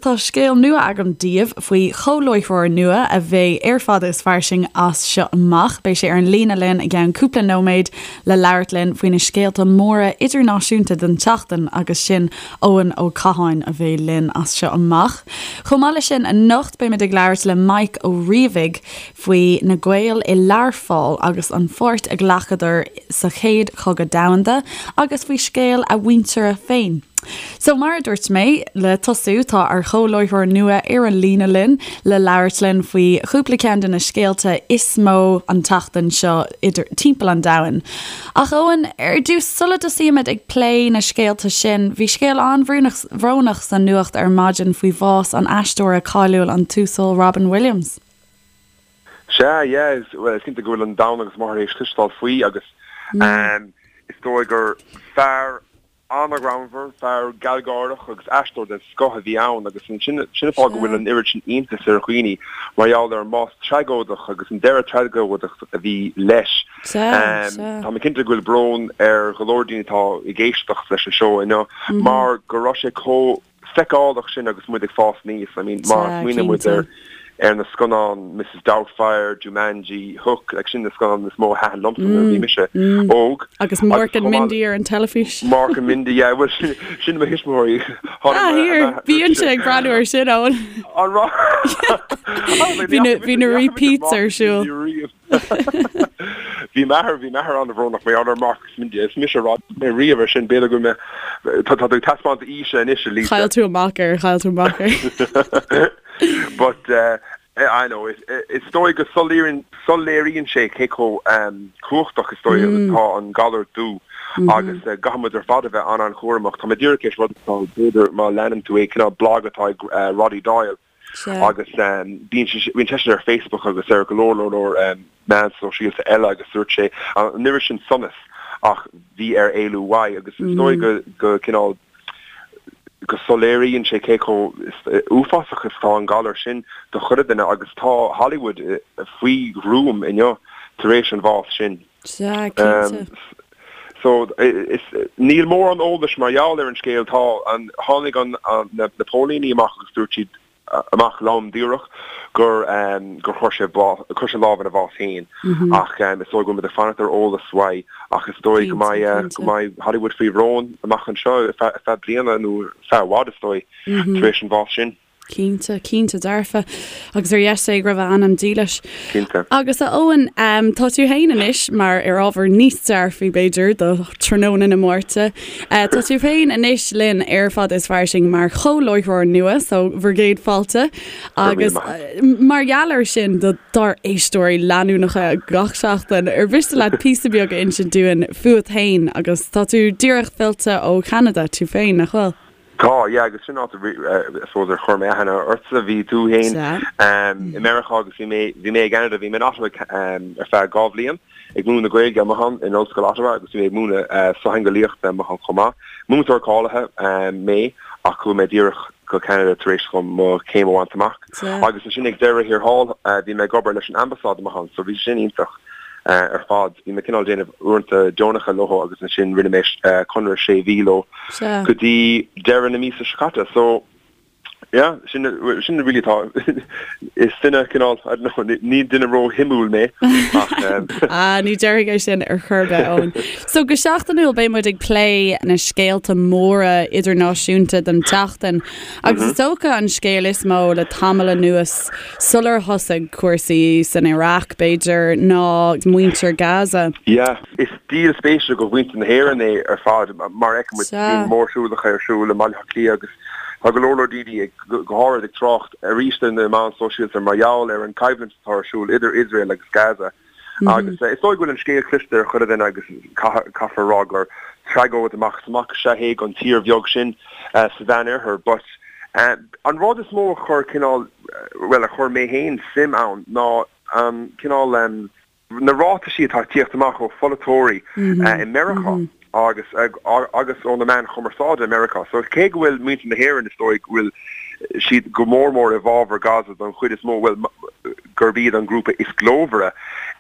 Tá scéal nua agam daoibh faoi chomhláithreoir nua a bheidh ar Fada is Fairsing as seo amach. Beidh sé ar an líne linn i gceann cúpla nóiméad le labhairt linn faoi na scéalta móra idirnáisiúnta den tseachtain agus sin Eoin Ó Catháin a bheidh linn as seo amach. Chomh maith leis sin anocht beimid ag labhairt le Mike Ó Riabhaigh faoi na Gaeil i Learpholl agus an pháirt a ghlacadar sa Chéad Chogadh Domhanda agus faoi scéal a mhuintire féin. So, mar a dúirt mé, le tosú, tá ár chomhláithreoir nua ar an líne linn le labhairt linn faoi chúpla ceann de na scéalta is mó an tseachtain seo idir timpeall an domhain. Ach Eoin, ar dtús, sula dtosaímid ag plé na scéalta sin, bhí scéal an-bhrónach sa nuacht ar maidin faoi bhás an aisteora cáiliúil an tUasal Robin Williams. Sea, yeah, bhuel, is cinnte go bhfuil an domhan agus máthair théis cloisteáil faoi agus is dóigh gur fear An-ghreannmhar, fear gealgháireach agus aisteoir den scoth a bhí ann agus sin sin an fáth go bhfuil an oiread sin iontais ar dhaoine mar gheall ar an mbás tragóideach agus an deireadh tragóideach a bhí leis. Tá mé cinnte go bhfuil brón ar go leor daoine atá ag éisteacht leis an seó inniu mar go raibh sé chomh feiceálach sin agus muid ag fás aníos. I mean, má smaoiníonn muid ar ar na scannáin Mrs Doubtfire, Jumanji, Hook, like sin na scannáin is mó a thaitin liomsa nuair a bhí mise óg. Agus Mork and Mindy ar an teilifís. Mork and Mindy, yeah, well sin sin mo thuismitheoirí. Ah, here, bíonn sé ag breathnú ar sin, Eoin. An raibh? Bhí na bhí na repeats ar siúl. Bhí m'athair, bhí m'athair an-bhrónach mar gheall ar Mork agus Mindy. Is mise a raibh mé riamh ar sin, b'fhéidir go mbeidh, tá tú ag taispeáint aoise anois, a Lisa. Chaill tú amach air, chaill tú amach air. But I know, is dóigh go soiléiríonn, soiléiríonn sé cé chomh cumhachtach is dóigh atá an galar dubh agus caithfidh muid ar fad a bheith an-an-chúramach. Tá mé díreach théis rud atá, b'fhéidir má leanann tú é, cineál blag atá ag Roddy Doyle. Agus bíonn seisean ar Facebook agus ar go leor leor leor meán sóisialta eile agus dúirt sé an oiread sin sonas ach bhí air éalú uaidh agus is dóigh go go cineál go soiléiríonn sé cé chomh uafásach is atá an galar sin do chuile duine agus tá Hollywood faoi ghruaim inniu tar éis an bhás sin. Sea, cinnte. So, is, níl mórán eolais mar gheall ar an scéal. Tá an, tháinig an, na, na póilíní amach agus dúirt siad amach lom díreach gur, gur chuir sé bás, chuir sé lámh ina bhás féin. Ach is dóigh go bhfuil muid ag fanacht ar eolas uaidh ach is dóigh go mbeidh, go mbeidh Hollywood faoi bhrón amach anseo ar feadh, ar feadh bliana nó ar feadh i bhfad is dóigh, tar éis an bhás sin. Cinnte, cinnte dearfa. Agus ar dheis Dé go raibh a anam dílis. Cinnte. Agus a Eoin, tá tú féin anois, mar ar ábhar níos dearfaí b'fhéidir do tráthnóna na Máirte, tá tú féin anois linn ar Fada is Fairsing mar chomhláithreoir nua, so bhur gcéad fáilte. Agus mar gheall air sin do dár éisteoirí leanúnacha gach seachtain, ar mhiste leat píosa beag a insint dúinn fúat féin agus tá tú díreach fillte ó Cheanada tú féin, nach bhfuil? Tá, yeah, agus sin áit I suppose ar chuir mé aithne ortsa, bhí tú féin i Meiriceá agus bhí mé, bhí mé i gCeanada, bhí mé in Ottawa ar feadh 2 bhliain ag múineadh na Gaeilge amuigh ann in Ollscoil Ottawa agus bhí mé ag múineadh sochtheangeolaíochta amuigh ann chomh maith. Múinteoir cáilithe mé ach chuaigh mé díreach go Ceanada tar éis dom mo chéim a bhaint amach. Agus ansin ag deireadh thiar thall bhí mé ag obair leis an Ambasáid amuigh ann so bhí sin iontach. ar fad. Bhí mé cineál déanamh uaireanta deonacha leo agus ansin rinne mé conradh sé mhí leo go dtí deireadh na míosa seo caite. So yeah, sin sin really atá is duine cineál, I don't know, ní duine ró-shuimiúil mé ach Ah, ní déarfainn é sin ar chor ar bith, Eoin. So go seachtainiúil beidh muid ag plé na scéalta móra idirnáisiúnta don tseachtain agus is dócha an scéal is mó le tamall anuas Sular thosaigh cúrsaí san Iaráic, b'fhéidir, ná muintir Gaza. Yeah. Is díol spéise do mhuintir na hÉireann é ar fad. Mar a fheiceann muid, bíonn mórshiúlacha ar siúl i mBaile Átha Cliath agus tá go leor leor daoine, go háirid, ag trácht arís ar na meáin sóisialta mar gheall ar an choimhlint atá ar siúl idir Iosrael agus Gaza. Agus is dóigh go bhfuil an scéal cloiste ag chuile dhuine agus caithfear a rá gur tragóid amach is amach is ea é don tír bheag sin sa Mheánoirthear. But an rud is mó a chuir cineál, bhuel a chuir mé féin suim ann ná an cineál, na ráitisí atá ag tíocht amach ó pholaiteoirí i Meiriceá agus agus ó na meáin chumarsáide i Meiriceá. So cé go bhfuil muintir na hÉireann is dóigh go bhfuil siad go mór mór i bhfabhar Gaza don chuid is mó, bhuel, gurb iad an grúpa is glórmhaire,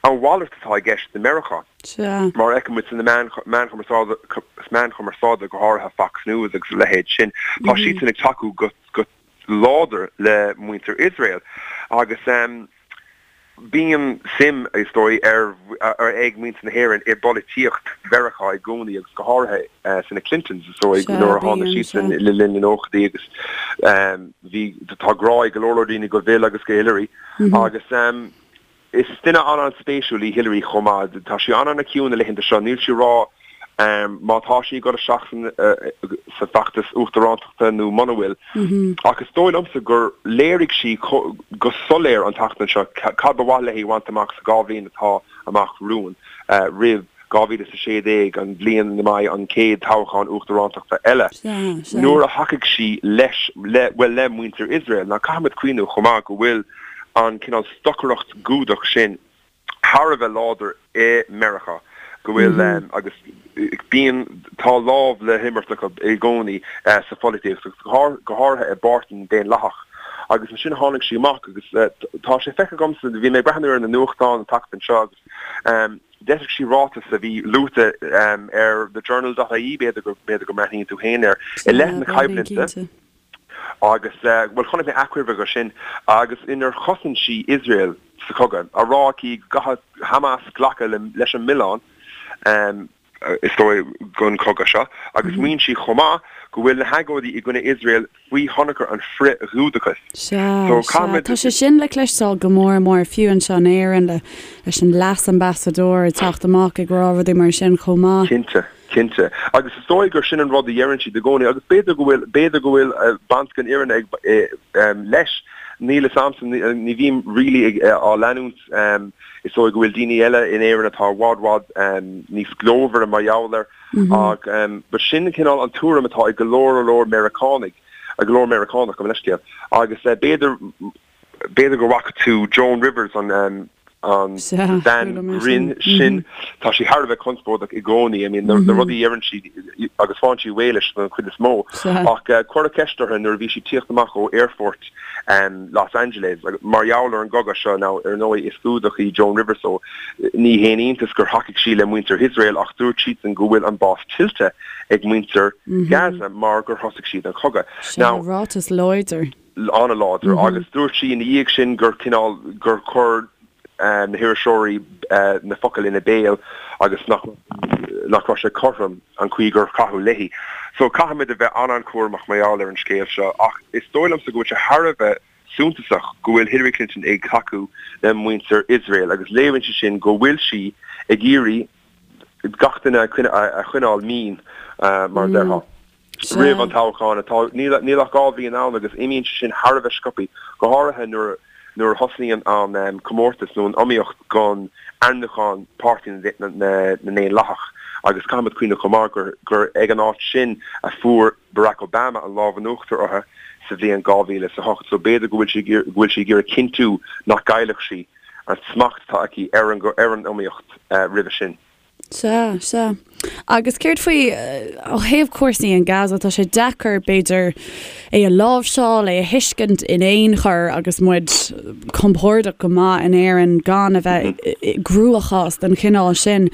a mhalairt atá i gceist i Meiriceá. Sea. Mar a fheiceann muid sna meáin meáin chumarsáide, go háirithe Fox News agus a leithéid sin, tá siadsan ag tacú go go. láidir le muintir Iosrael agus bíonn suim, is dóigh, ar ag muintir na hÉireann i bpolaitíocht Mheiriceá i gcónaí agus go háirithe sna Clintons, is dóigh, nuair a tháinig siadsan le linn na nóchaidí agus bhí, tá grá ag go leor leor daoine go Bill agus go Hillary agus. Is duine an-an-spéisiúil í Hillary chomh maith. Tá sí an-an-chiúin na laethanta seo. Níl sí ag rá má tá sí ag dul isteach sa bhfeachtas uachtarántachta nó muna bhfuil. Ach is dóigh liomsa gur léirigh sí go soiléir an tseachtain seo cad ba mhaith léi a bhaint amach sa dá bhliain atá amach romhainn, roimh 2016, an bhliain ina mbeidh an chéad toghchán uachtarántachta eile, nuair a thacaigh sí leis, le, bhuel, le muintir Iosrael. Now caithfimid cuimhniú chomh maith go bhfuil an cineál stocaireacht Ghiúdach sin thar a bheith láidir i Meiriceá, go bhfuil, agus bíonn, tá lámh le himirt acu i gcónaí sa pholaitíocht, agus go háirithe i bPáirtí na nDaonlathach. Agus ansin tháinig sí amach agus tá sé feicthe agamsa, bhí mé ag breathnú ar na nuachtáin an tseachtain seo agus d'eisigh sí ráiteas a bhí luaite ar thejournal dot ie, b'fhéidir go, b'fhéidir go mbreathnaíonn tú féin air, i leith na coimhlinte. Agus, bhuel, chonaic mé achoimre de sin, agus inar chosain sí Iosrael sa chogadh, á rá aici go gcaithfidh Hamas glacadh leis an milleán, is dóigh, don chogadh seo, agus maíonn sí chomh maith go bhfuil na hagóidí i gcoinne Iosrael faoi thionchar an frith-Ghiúdachais. Sea, sea. Tá sé sin le cloisteáil go mór mór, fiú anseo in Éirinn, leis an leas-ambasadóir ag teacht amach ag rá rudaí mar sin chomh maith. Cinnte. Cinnte. Agus is dóigh gur sin an rud a dheireann siad i gcónaí agus b'fhéidir go bhfuil, b'fhéidir go bhfuil baint den fhírinne ag, leis. Níl fhios a'msa, ní bhím really ag, á leanúint. Is dóigh go bhfuil daoine eile in Éirinn atá i bhfad, bhfad níos glórmhaire mar gheall air ach but sin cineál an tuairim atá ag go leor, leor Meiriceánaigh, go leor Meiriceánach, gabh mo leithscéal. Agus b'fhéidir, B'fhéidir go bhfaca tú Joan Rivers, an bhean ghrinn sin. Tá sí thar a bheith conspóideach i gcónaí. I mean, na rudaí a dheireann sí agus faigheann sí réidh leis don chuid is mó. Ach cuireadh ceist uirthi nuair a bhí sí ag tíocht amach ó aerfort Los Angeles mar gheall ar an gcogadh seo. Now, ar ndóigh, is Giúdach í Joan Rivers so ní haon iontas gur thacaigh sí le muintir Iosrael ach dúirt siadsan go bhfuil an bás tuillte ag muintir Gaza mar gur thosaigh siad an cogadh. Now, ráiteas láidir. an-láidir agus dúirt sí ina dhiaidh sin gur cineál, gur chuir na hiriseoirí na focail ina béal agus nach nach raibh sé cothrom an chaoi gur caitheadh léi. So caithfimid a bheith an-an-chúramach mar gheall ar an scéal seo ach is dóigh liomsa go bhfuil sé thar a bheith suntasach go bhfuil Hillary Clinton ag tacú le muintir Iosrael agus léiríonn sé sin go bhfuil sí ag iarraidh gach duine a choinneáil mín mar a déarfá. roimh an toghchán atá, níl ach 2 bhliain ann agus imíonn sé sin thar a bheith sciobtha, go háirithe nuair nuair a thosnaíonn an comórtas nó an iomaíocht don ainmniúchán Páirtí na nDaonlathach agus caithfimid cuimhneamh chomh maith gur gur ag an áit sin a fuair Barack Obama an lámh in uachtar uirthi sa bhliain 2008 so b'fhéidir go bhfuil sí go bhfuil sí ag iarraidh cinntiú nach gcaillfeadh sí an smacht atá aici ar an ar an iomaíocht roimhe sin. Sea, sea. Agus céard faoi, ó thaobh cúrsaí in Gaza, tá sé deacair, b'fhéidir, é a láimhseáil, é a thuiscint in aon chor agus muid compordach go maith in Éirinn gan a bheith i gcruachás den chineál sin.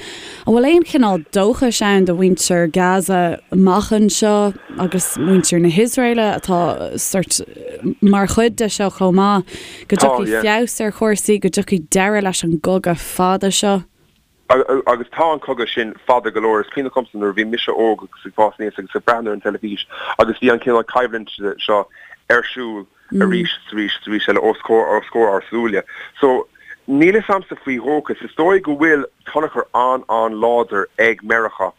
An bhfuil aon chineál dóchais ann do mhuintir Gaza amach anseo agus muintir na hIosraeile atá sort mar chuid de seo chomh maith, go dtiocfaidh feabhas ar chúrsaí, go dtiocfaidh deireadh leis an gcogadh fada seo? Agus tá an cogadh sin fada go leor. Is cuimhneach liomsa nuair a bhí mise óg agus ag fás aníos agus ag breathnú ar an teilifís agus bhí an cineál coimhlint seo ar siúl arís is arís is arís eile os comhair os comhair ár súile. So, níl fhios a'msa faoi dhóchas. Is dóigh go bhfuil tionchar an-an-láidir ag Meiriceá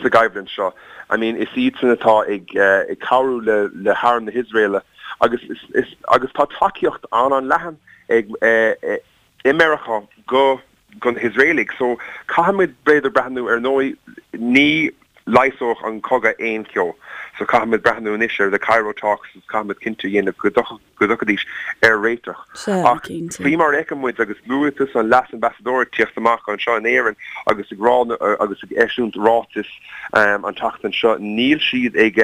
sa gcoimhlint seo. I mean, is iadsan atá ag ag cabhrú le le harm na hIosraeile agus is is agus tá tacaíocht an-an-leathan ag i Meiriceá go go na hIosraelaigh. So caithfimid b'fhéidir breathnú ar ndóigh ní leigheasódh an cogadh aon cheo. So caithfimid breathnú anois ar the Cairo talks agus caithfimid cinnte a dhéanamh go go dtiocfaidís ar réiteach. Sea, Ach cinnte. faoi mar a fheiceann muid agus luaigh tusa an leas-ambasadóir ag tíocht amach anseo in Éirinn agus ag rá agus ag eisiúint ráitis an tseachtain seo níl siad ag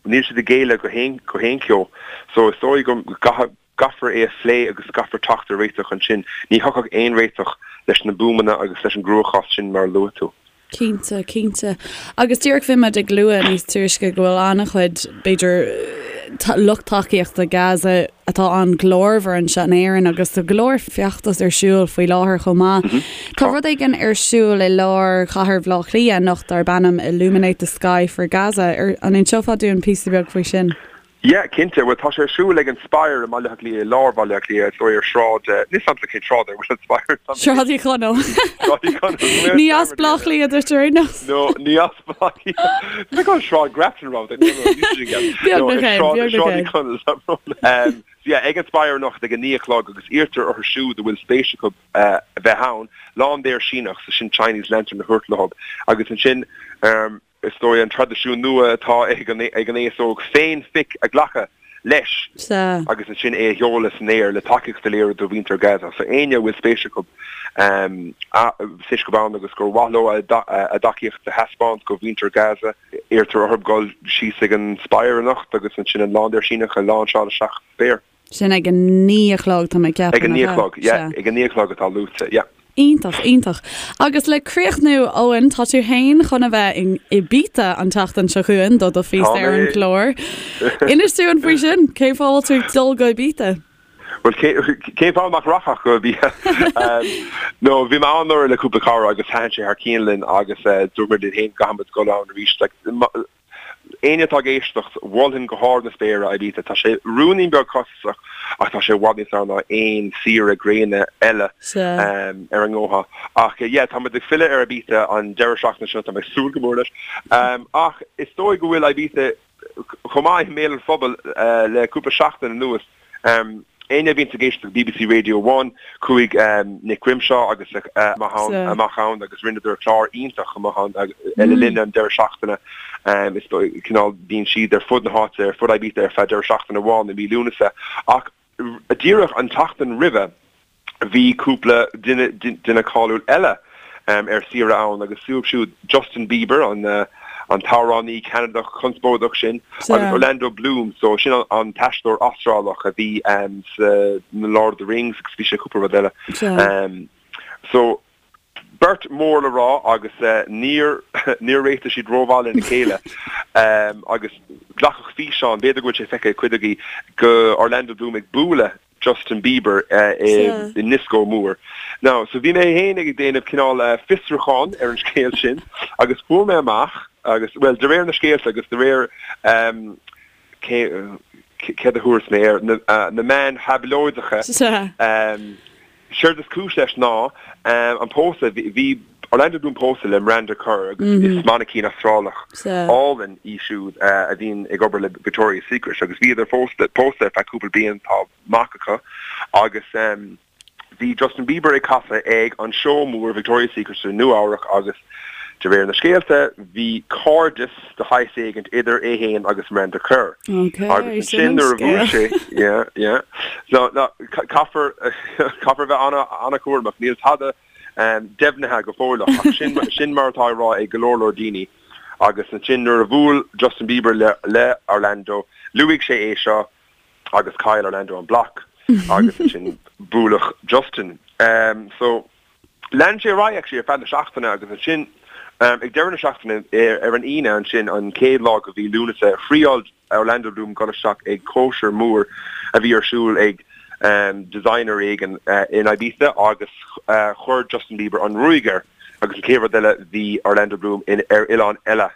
níl siad ag géilleadh go haon go haon cheo. So is dóigh go gcaithfidh gcaithfear é a phlé agus caithfear teacht ar réiteach ansin. Ní thiocfadh aon réiteach leis na buamanna agus leis an gcruachás sin mar a luaigh tú. Cinnte, cinnte. Agus díreach bhí muid ag lua níos túisce go bhfuil an-chuid, b'fhéidir, lucht tacaíochta Gaza atá an-ghlórmhar anseo in Éirinn agus tá go leor feachtas ar siúl faoi láthair chomh maith. Tá rud éigin ar siúl i lár chathair Bhaile Átha Cliath anocht darb ainm Illuminate the Sky for Gaza. An inseofá dúinn píosa beag faoi sin? Yeah, cinnte. Bhuel, tá sé ar siúl ag an Spire i mBaile Átha Cliath, i lár Bhaile Átha Cliath, is dóigh ar Shráid, níl 's a'msa cén sráid ar a bhfuil an Spire. Sráid Uí Chonaill. Sráid Uí Chonaill. Ní as Baile Átha Cliath duit ar aon nós. No, ní as Baile Átha Cliath. Bhí go Sráid Grafton romhat, no, no, ní sin ceart. Beagnach é, beagnach é. Sráid Uí Chonaill, tá brón. Um, so yeah, ag an Spire anocht ag a 9 a chlog agus iarrtar orthu siúd a bhfuil spéis acu uh, a bheith ann, laindéar Síneach, so sin Chinese lantern a thabhairt leo agus ansin um, Is dóigh an traidisiún nua atá ag an aos óg féin-phic a ghlacadh leis agus ansin é a sheoladh san aer le tacaíocht a léiriú do mhuintir Gaza. So éinne a bhfuil spéis acu spéis acu ann agus gur mhaith leo a dtacaíocht a thaispeáint do mhuintir Gaza, iarrtar orthu dul síos ag an Spire anocht agus ansin an laindéar Síneach a láinseáil isteach sa spéir. Sin ag a 9 a chlog, tá mé ag ceapadh, Ag a 9 a chlog, yeah, ag a 9 a chlog atá luaite, yeah. Iontach, iontach. Agus le críochnú, Eoin, tá tú fhéin chun a bheith in Ibiza an tseachtain seo chugainn do do phíosa ar an chlár. Inis dúinn faoi sin, cén fáth a bhfuil tú ag dul go Ibiza? Bhuel, cén fáth nach rachfá go Ibiza? No, bhí mé ann anuraidh le cúpla cara agus thaitin sé thar cionn linn agus dúirt muid linn féin go gcaithfidh muid dul ann arís. Like, Éinne atá ag éisteacht, mholfainn go hard na spéire Ibiza. Tá sé ruainnín beag costasach ach tá sé i bhfad níos fearr ná aon saoire gréine eile ar an ngótha. Ach yeah, tá muid ag filleadh ar Ibiza an deireadh seachtaine seo, tá mé ag súil go mór leis. Ach is dóigh go bhfuil Ibiza chomh maith i mbéal an phobail le cúpla seachtain anuas. Éinne a bhíonns ag éisteacht le bbc Radio One, chuaigh Nick Grimshaw agus a amach ann agus rinneadar clár iontach amach ann le linn an deireadh seachtaine. Is dóigh, cineál, bíonn siad ar fud na háite, ar fud Ibiza ar feadh deireadh seachtaine amháin i mí Lúnasa. Ach díreach an tseachtain roimhe, Bhí cúpla duine duine cáiliúil eile ar saoire ann agus dóibh siúd Justin Bieber, an an t-amhránaí Ceanadach conspóideach sin, agus Orlando Bloom, so sin an t-aisteoir Astrálach a bhí sa Lord of the Rings agus bhí sé cúpla rud eile. So beirt mór le rá agus níor níor réitigh siad rómhaith lena chéile agus glacadh físeán, b'fhéidir go bhfuil sé feicthe ag cuid agaibh, de Orlando Bloom ag bualadh Justin Bieber i ndioscó mór. Now, so bhí mé féin ag déanamh cineál fiosrúchán ar an scéal sin agus fuair mé amach agus, bhuel, de réir na scéalta agus de réir cé céard a thabharfas mé air, na meáin thablóideacha, Séard is cúis leis ná an pósadh, bhí Orlando Bloom pósta le Miranda Kerr agus is mainicín Astrálach álainn í siúd a bhíonn ag obair le Victoria's Secret agus bhíodar pósta ar feadh cúpla bliain, tá mac acu agus bhí Justin Bieber ag casadh ag an seó mór Victoria's Secret i Nua Eabhrac agus de réir na scéalta bhí cairdeas de shaghas éigint idir é fhéin agus Miranda Kerr. Ok, Agus sin ansin an nuair a bhuail sé, yeah, yeah. So, no, caithfear, caithfear bheith ana, ana-chúramach. Níl tada deimhnithe go fóilleach, ach sin, sin mar atá á rá ag go leor leor daoine. Agus ansin nuair a bhuail Justin Bieber le, le Orlando, luaigh sé é seo agus chaill Orlando an bloc agus ansin buaileadh Justin. So, Lean sé ar aghaidh actually ar feadh na seachtaine agus ansin ag deireadh na seachtaine ar an Aoine ansin an chéad lá de mhí Lúnasa thriáil Orlando Bloom dul isteach ag cóisir mór a bhí ar siúl ag designer éigin in Ibiza agus chuir Justin Bieber an ruaig air agus an chéad rud eile bhí Orlando Bloom ar oileán eile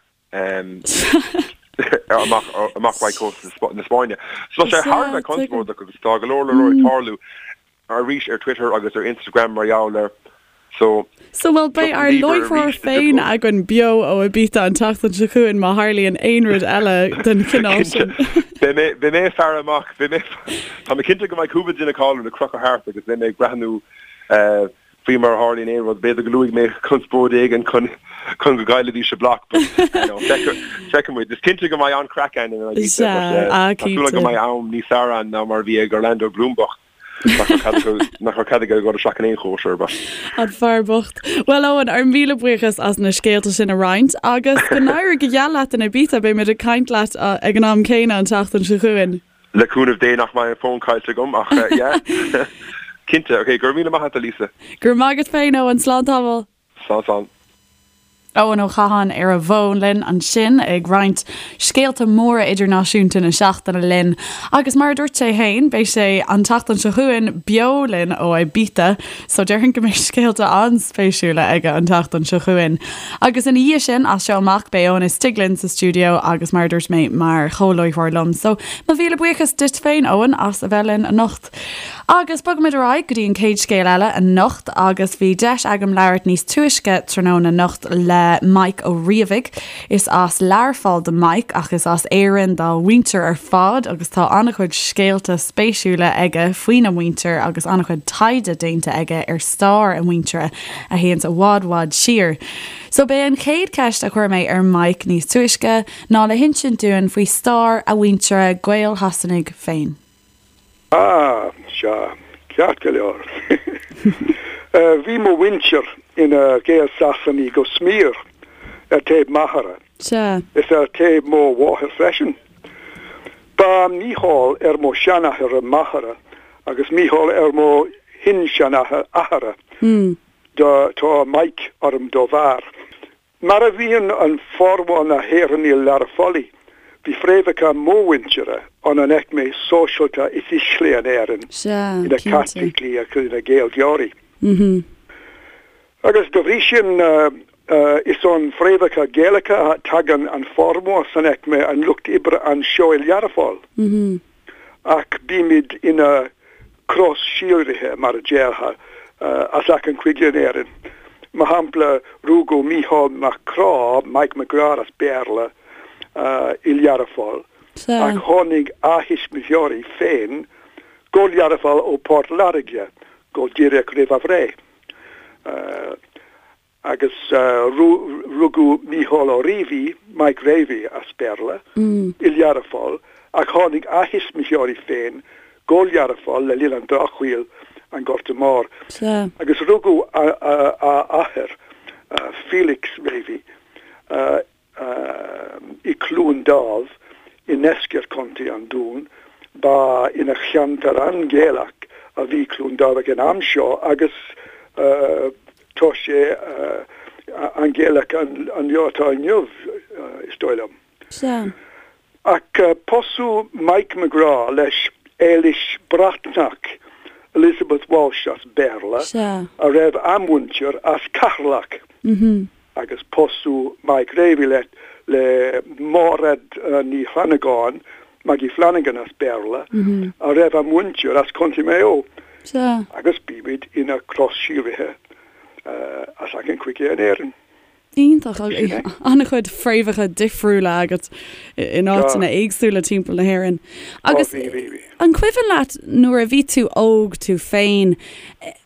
amach amach uaidh cósta na Spáinne. So tá sé thar a bheith conspóideach agus tá go leor leor ag tarlú. arís ar Twitter agus ar Instagram mar gheall air. So, So bhuel beidh ár láithreoir féin againn beo ó Ibiza an tseachtain seo chugainn má tharlaíonn aon rud eile den chineál sin. Beidh mé, beidh mé ag faire amach, beidh mé, tá mé cinnte go mbeidh cúpla duine cáiliúil ag crochadh thart agus beidh mé ag breathnú faoi mar a tharlaíonn aon rud. B'fhéidir go luafaidh mé conspóid éigin chun chun go gcaillfidís a bloc but you know, feicfidh muid. Is cinnte go mbeidh an-chraic ann in Ibiza but tá súil agam go mbeidh am níos fearr ann ná mar a bhí ag Orlando Bloom bocht. Nach raibh cead aige dul isteach in aon chóisir but. An fear bocht. Bhuel Eoin, ár míle buíochas as na scéalta sin a roinnt agus go n-éirí go geal leat in Ibiza, beidh muid ag caint leat ag an am céanna an tseachtain seo chugainn. Le cúnamh Dé nach mbeidh an fón caillte agam ach yeah. Cinnte. Ok, go raibh míle maith agat a Lisa. Go raibh maith agat féin Eoin, slán tamall. Slán slán. Eoin Ó Catháin ar an bhfón linn ansin ag roinnt scéalta móra idirnáisiúnta na seachtaine linn agus mar a dúirt sé féin beidh sé an tseachtain seo chugainn beo linn ó Ibiza so déarfainn go mbeidh scéalta an-spéisiúla aige an tseachtain seo chugainn. Agus ina dhiaidh sin, as seo amach, beidh Eoin istigh linn sa stiúideo agus mar a dúirt mé mar chomhláithreoir liom. So mo mhíle buíochas duit féin Eoin as a bheith linn anocht. Agus bogaimid ar aghaidh go dtí an chéad scéal eile anocht agus bhí deis agam labhairt níos túisce tráthnóna anocht le Mike Ó Riabhaigh. Is as Learpholl do Mike ach is as Éirinn dá mhuintir ar fad agus tá an-chuid scéalta spéisiúla aige faoina mhuintir agus an-chuid taighde déanta aige ar stair a mhuintire a théanns i bhfad bhfad siar. So b'é an chéad cheist a chuir mé ar Mike níos túisce ná le hinsint dúinn faoi stair a mhuintire Gael-Shasanaigh féin. Ah, sea, ceart go leor. Bhí mo mhuintir ina Ghael-Sasanaigh go smior, ar taobh m'athara, is ar taobh mo mháthair freisin. Ba Mícheál ar mo sheanathair máthara agus Mícheál ar mo shin-seanathair athara. Tá Mike orm dá bharr. Mar a bhíonn an formhór na hÉireannaigh Learphollaigh, bhí fréamhacha mo mhuintire ón an aicme sóisialta is ísle in Éirinn, Sea, ina cinnte. Caitlicigh agus ina Gaeilgeoirí. Agus dá bhrí sin, is ón fréamhacha Gaelacha a tagann an formhór san aicme an lucht oibre anseo i Learpholl. Ach bímid ina cros-síolraithe, mar a déarfá, as achan chúige in Éirinn. Mar shampla, rugadh Mícheál Mac Craith, Mike McGrath as Béarla, i Learpholl, ach tháinig a thuismitheoirí féin go Learpholl ó Port Láirge go díreach roimh a bhreith. Agus rugadh Mícheál Ó Riabhaigh, Mike Ravey as Béarla, i Learpholl, ach tháinig a thuismitheoirí féin go Learpholl le linn an Drochshaoil, an Gorta Mór. Agus rugadh a athair, Felix Ravey, i Cluain Dámh i ndeisceart Chontae an Dúin. Ba ina cheantar an-Ghaelach a bhí Cluain Dámh ag an am seo agus tá sé an-Ghaelach an lá atá inniu, is dóigh liom. Sea. Ach pósadh Mike McGrath leis Éilis Breatnach, Elizabeth Walsh as Béarla, a raibh a muintir as Ceatharlach. Agus pósadh Mike Ravey le le Máiréad Ní Fhlannagáin, Maggie Flanagan as Béarla, a raibh a muintir as Contae Maigh Eo. Agus bímid ina cros-síolraithe as achan chúige in Éirinn. Iontach. An-chuid fréamhacha difriúla agat in áiteanna éagsúla timpeall na hÉireann. Agus an cuimhin leat nuair a bhí tú óg tú féin,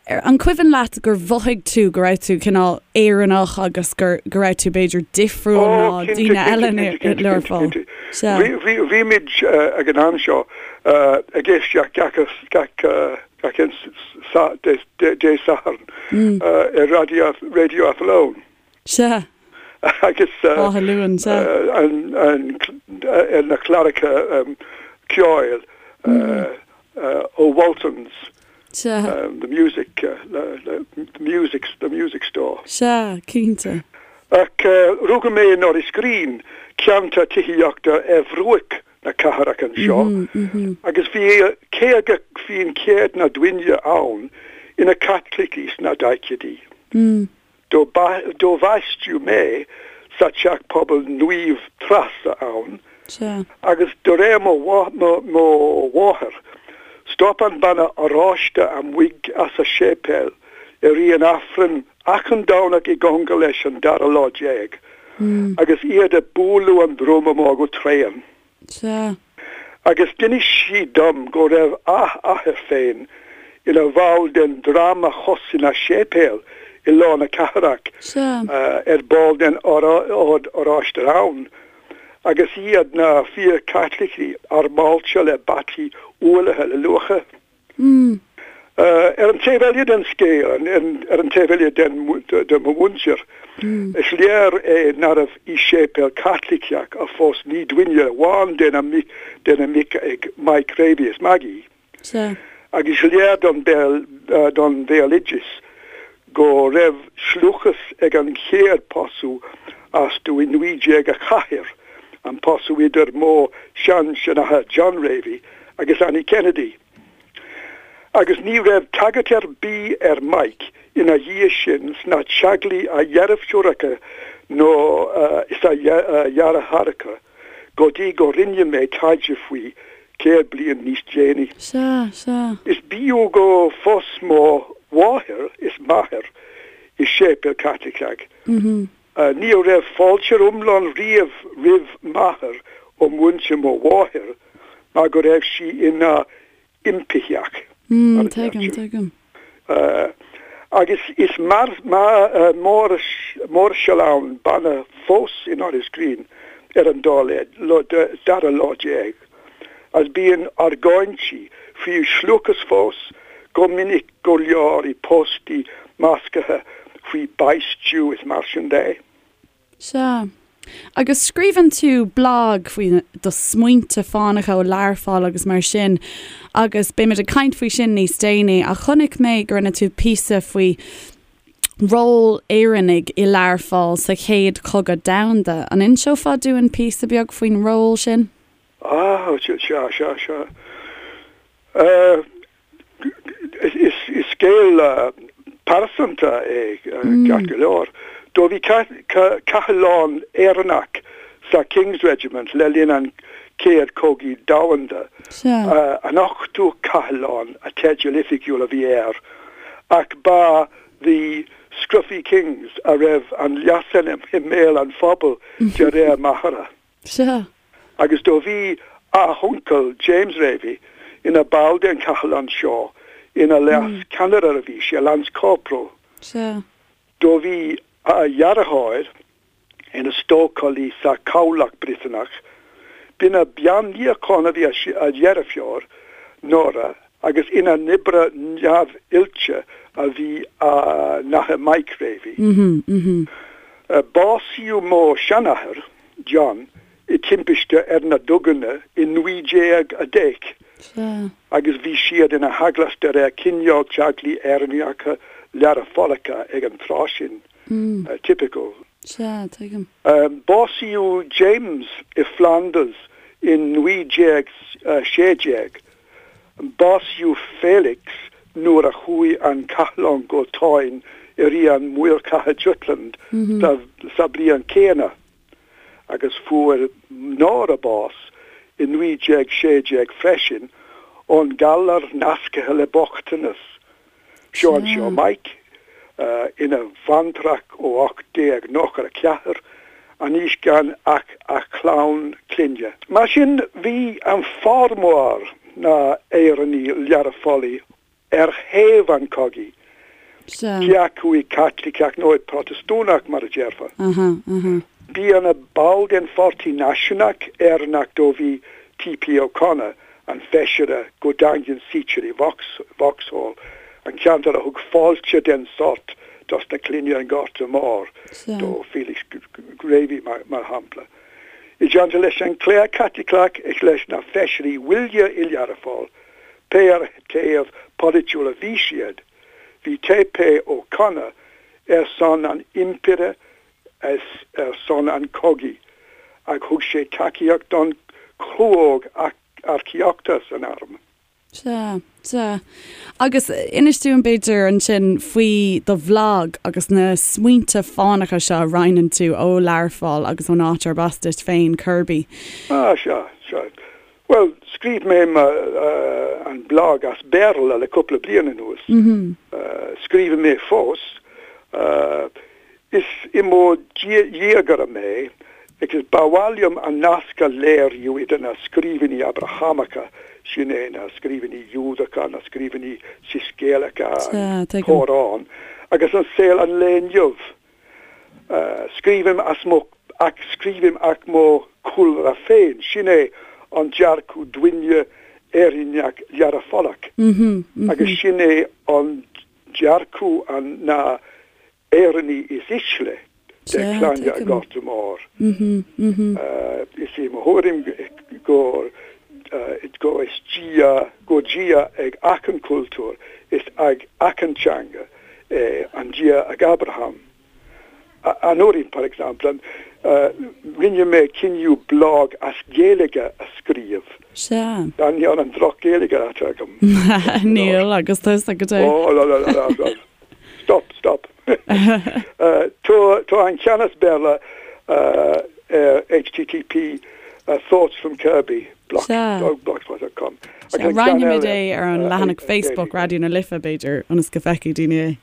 an cuimhin leat gur mhothaigh tú go raibh tú cineál Éireannach agus go raibh tú b'fhéidir difriúil ná daoine eile i Learpholl? Sea. Bhí muid ag an am seo ag éisteacht gach gach aon Dé Sathairn ar Radio Athlone. Sea. Agus Áth Luain, sea. ar na cláracha ceoil ó Waltons, Sea. the music, the music, the music store. Sea, cinnte. Ach rugadh mé i Norris Green, ceantar tithíochta ar bhruach na cathrach anseo agus bhí 50% na daoine ann ina Caitlicigh sna daichidí. Do baisteadh mé sa teach pobail Naomh Treasa ann agus de réir mo mháthair, stop an banna oráiste amuigh as a séipéal i rith an Aifrinn achan Domhnach i gcóngar leis an dara lá déag agus iad ag bualadh an druma mór go tréan. Sea. Agus d'inis sí dom go raibh a athair féin ina bhall den dream a chosain a séipéal i lár na cathrach, ar ball den Ord Oráiste ann, agus iad na fíor-Chaitlicigh armáilte le bataí ualaithe le luacha. Ar an taobh eile den scéal, ar an taobh eile de mo mhuintir, is léir é nárbh i séipéal Caitliceach a phós ní duine amháin de na mic ag Mike Ravey is Maggie. Agus is léir don bhéaloideas. Go raibh sealúchas ag an chéad pósadh astu i 1904, an pósadh idir mo shean-seanathair John Ravey agus Annie Kennedy. Agus ní raibh tagairt ar bith ar Mike ina dhiaidh sin sna teaghlaigh a dheirfiúracha nó is a dheartháireacha go dtí go rinne mé taighde faoi 100 bliain níos déanaí. Sea, sea. Is beo go phós mo mháthair is m'athair i séipéal Caitliceach. Ní raibh fáilte iomlán riamh roimh m'athair ó mhuintir mo mháthair mar go raibh sí ina impitheach, mar a Tuigim, tuigim. Agus is máirseálann banna fós in Iorras Green ar an dara lá déag, agus bíonn argóintí faoi sealúchas fós go minic go leor i póstaí measctha faoi baisteadh is mar sin de. Sea. Agus scríobhann tú blag faoi do smaointe fánacha ó Learpholl agus mar sin agus beimid ag caint faoi sin níos déanaí ach chonaic mé go rinne tú píosa faoi ról Éireannaigh i Learpholl sa Chéad Chogadh Domhanda. An inseofá dúinn píosa beag faoin ról sin? Ah, sea, sea, sea. Is scéal pearsanta é ceart go leor. Do bhí cathlán Éireannach sa King's Regiment le linn an Chéad Chogaidh Domhanda. An Ochtú Cathlán a teideal oifigiúil a bhí air, ach ba The Scruffy Kings a raibh an leasainm i mbéal an phobail de réir m'athara. Sea. Agus do bhí a uncail James Ravey ina ball den chathlán seo, ina leas ceannaire a bhí sé, Lance Corporal. Sea. Do bhí a dheartháir ina stócálaí sa chabhlach Briotanach. B'ina bean níocháin a bhí a dheirfiúr, Nora, agus ina n-oibrí neamhoilte a bhí a n-athair Mike Ravey. Básaíodh mo sheanathair, John, i timpiste ar na duganna i 1910 agus bhí siad ina theaghlach de réir cineál teaghlaigh Éireannacha Learphollacha ag an tráth sin. Typical. Sea, tuigim. Básaíodh James i Flanders in 1916. Básaíodh Felix nuair a chuaigh an cathlán go Táin i rith an Mhórchatha Jutland sa bhliain céanna, agus fuair Nora bás i 1916 freisin ón galar nasctha le bochtanas. Seo anseo Mike, ina bhaintreach ó 1894, anois gan ach a chlann clainne. Mar sin, bhí an formhór na Éireannaigh Learphollaigh ar thaobh an chogaidh, cé acu i Caitliceach nó i Protastúnach, mar a déarfá. Bhí ina ball den Pháirtí Náisiúnach Éireannach do bhí T.P. O'Connor, an feisire go daingean suite i Vauxhall, an ceantar a thug fáilte den sórt dos na clainne an Ghorta Mór, do Felix Ravey mar shampla. I dteannta leis an chléir Chaitliceach is leis na feisirí uile i Learpholl, pé ar thaobh polaitiúil a bhí siad, bhí T.P. O'Connor ar son an Impire is ar son an chogaidh ach thug sé tacaíocht don chlúóg earcaíochta san arm. Sea, sea. Agus inis dúinn b'fhéidir ansin faoi do bhlag agus na smaointe fánacha seo a roinneann tú ó Learpholl agus ón áit arb as duit féin, Kirby. Ah, sea, sea. Bhuel, scríobh mé an blag as Béarla le cúpla bliain anuas. Scríobhann mé fós. Is i mo dhiagaire mé agus ba mhaith liom an nasc a léiriú idir na scríbhinní Abrahamacha, sin é na scríbhinní Iúdacha, na scríbhinní Soiscéalacha, an Córán, agus an saol an lae inniu. Scríobhaim as mo ach scríobhaim as mo chúlra féin, sin é an dearcadh duine Éireannach Learphollach agus sin é an dearcadh an na Éireannaigh is ísle de clainne an Ghorta Mhóir. Is é mo thuairim gur go is Dia, go Dia ag achan cultúr is ag achan teanga. é, an Dia ag Abraham. Anuraidh, par exemple, rinne mé cinneadh blog as Gaeilge a scríobh. Sea. D'ainneoin an droch-Ghaeilge atá agam. Níl, agus tusa go deo. Oh, la la la la. Stop, stop. Tá an ceann as Béarla ar http Thoughts from Kirby, blogspot dot com. Sea, roinnfimid é ar an leathanach Facebook Raidió na Life, b'fhéidir, ionas go bhfeicfidh daoine é.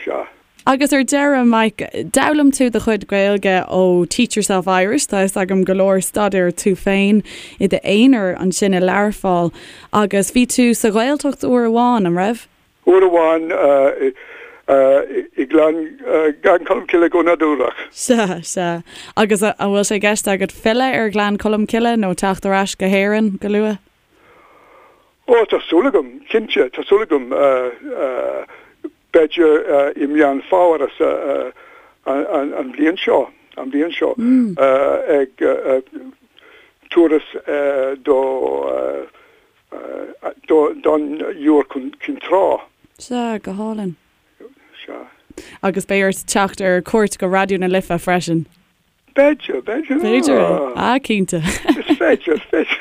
Sea. Agus ar deireadh, Mike, d'fhoghlaim tú do chuid Gaeilge ó Teach Yourself Irish, tá fhios agam go leor staidéir tú féin i d'aonar ansin i Learpholl, agus bhí tú sa Ghaeltacht uair amháin, an raibh? Uair amháin i nGleann Cholm Cille go nádúrach. Sea, sea. Agus an bhfuil sé i gceist agat filleadh ar Ghleann Cholm Cille nó teacht ar ais go hÉirinn go luath? Ó, tá súil agam, cinnte, tá súil agam. B'fhéidir i Meán Fómhair an bhliain seo, an bhliain seo, ag turas do don Iúr Cinn Trá. Sea, go hálainn. Sea. Agus beidh ort teacht ar cuairt go Raidió na Life freisin. B'fhéidir, b'fhéidir. B'fhéidir é. Ah, cinnte. Is féidir, is féidir.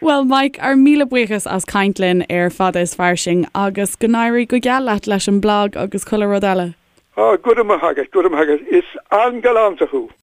Bhuel, Mike, ár míle buíochas as caint linn ar Fada is Fairsing agus go n-éirí go geal leat leis an mblag agus chuile rud eile. Ah, go raibh maith agat, go raibh maith agat. Is an-ghalánta thú.